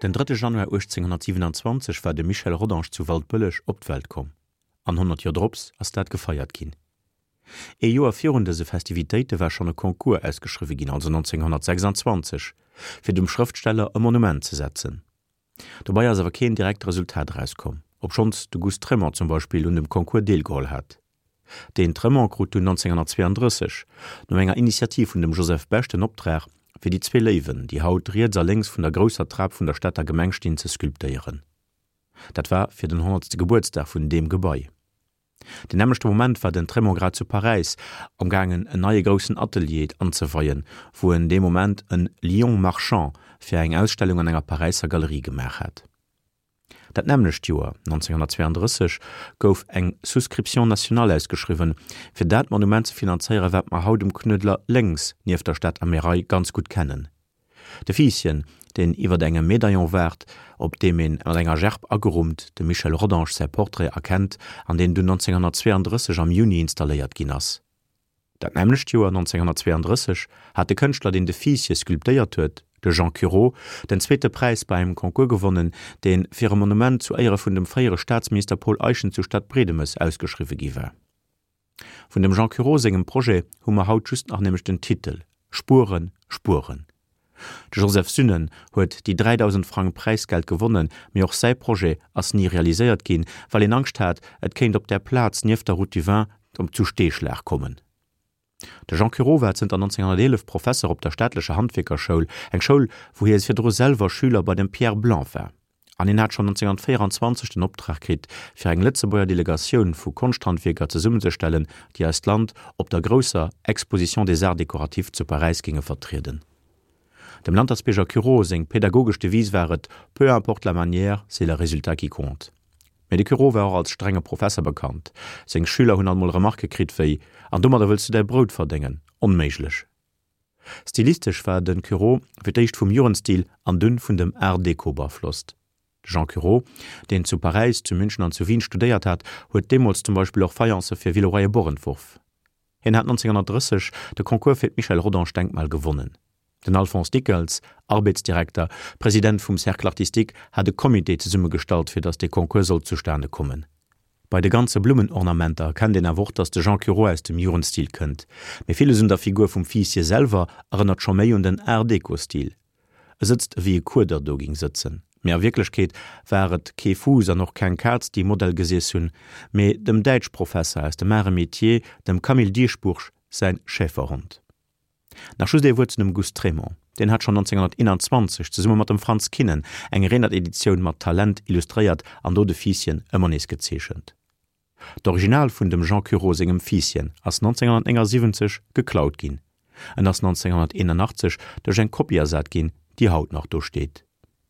Den drëtte Januar 1827 war de Michel Rodange zu Waldbëlleg op d'Welt komm. An 100 Joer drops ass dat gefeiert ginn. Ee Joer virun dëse Festivitéite war schonn e Concours ausgeschriwwe ginn, also 1926, fir dem Schrëftsteller e Monument ze setzen. Dobei ass awer keen direkt Resultat erauskomm, obschonns de Gust Trémont zum Beispill un dem Concours deelgeholl hat. Deen Trémont krut dunn 1932, no enger Initiativ vun dem Joseph Bech, den Optrag, fir déi zwee Léiwen, déi haut riets a lénks vun der grousser Trap vun der Stater Gemeng stinn, ze sculptéieren. Dat war fir den honnertste Gebuertsdag vun deem Gebai. Den nämmlechte Moment war den Trémont grad zu Paräis am gaangen en neie groussen Atelier anzeweien, wou en dee Moment en Lion marchand fir eng Ausstellung an enger Paräisser Galerie gemaach hat. Dat nämmlecht Joer, 1932, gouf eng Souscription nationale ausgeschriwwen, fir dat Monument ze finanzéieren, wat mer haut um Knuedler lénks nieft der Stater Märei ganz gutt kennen. De Fiisschen, deen iwwert engem Medaillon waart, op deem een mat enger Gerb agerummt dem Michel Rodange säi Portrait erkennt an deen dunn 1932 am Juni installéiert ginn ass. Dat nämmlecht Joer, 1932, hat de Kënschtler, deen de Fiissche sculptéiert huet, de Jean Cureau, den zweete Präis bei engem Concours gewonnen, dee fir e Monument zu Éiere vun dem fréiere Staatsminister Paul Eyschen zu Stadtbredemes ausgeschriwwe gi war. Vun dem Jean Cureau sengem Projet hu mer haut just nach nämlech den Titel, Spueren, Spueren. De Joseph Sünnen huet déi 3.000 Frang Präisgeld gewonnen, mee och säi Projet ass ni realiséiert ginn, well een Angscht hat, et kéint op där Plaz nieft der Route du Vin zu Steeschlag kommen. De Jean Cureau war zënter 1911 Professer op der staatlecher Handwierkerschoul, eng Schoul, wou hie virdru selwer Schüler bei dem Pierre Blanc war. An hien hat schonn 1924 den Optrag kritt, fir eng Lëtzebuerger Delegatioun vu Konschthandwierker zesummenzestellen, déi eist Land op der grousser Exposition des Arts décoratifs zu Paräis géinge vertrieden. Dem Lantersbierger Cureau seng pädagogesch Devise war et, Peu importe la manière, c'est le résultat qui compte. Mee de Cureau war och als strenge Professer bekannt. Seng Schüler hunn alt mol Remarquë kritt wéi, An domadder wëlls du däi Brout verdéngen? Onméiglech! Stilistesch war de Cureau fir d'éischt vum Jugendstil an dunn vun dem Art Déco beaflosst. De Jean Cureau, deen zu Paräis, zu München an zu Wien studéiert hat, huet deemools zum Beispill och Faïencë fir Villeroy-et-Boch entworf. Hien hat 1930 de Concours fir d'Michel Rodange-Denkmal gewonnen. Den Alphonse Dickels, Arbeetsdirekter, President vum Cercle artistique, hat e Comité zesummegestallt, fir datt dee Concours sollt zustane kommen. Bei de ganze Blummenornamenter erkennt een awer och, datt de Jean Cureau aus dem Jugendstil kënnt. Mee villes un der Figur vum Fiisje selwer erënnert scho méi un den Art-Déco-Stil. E sëtzt ewéi e Kueder do ging sëtzen. Mee a Wierklechkeet war et kee Fuuss an och keng Kaz, déi Modell gesiess hunn, mee dem Däitschprofesser aus dem Arts et Métiers, dem Camille Dieschbourg säin Schäferhond. Nach just ee Wuert zu dem Gust Trémont. Deen hat schonn 1921 zesumme mat dem Frantz Kinnen eng Renert-Editioun mat Talent illustréiert an do de Fiisschen ëmmer nees gezeechent. D'Original vun dem Jean Cureau sengem Fiisschen ass 1979 geklaut ginn. En ass 1981 duerch eng Kopie ersat ginn, déi haut nach do steet.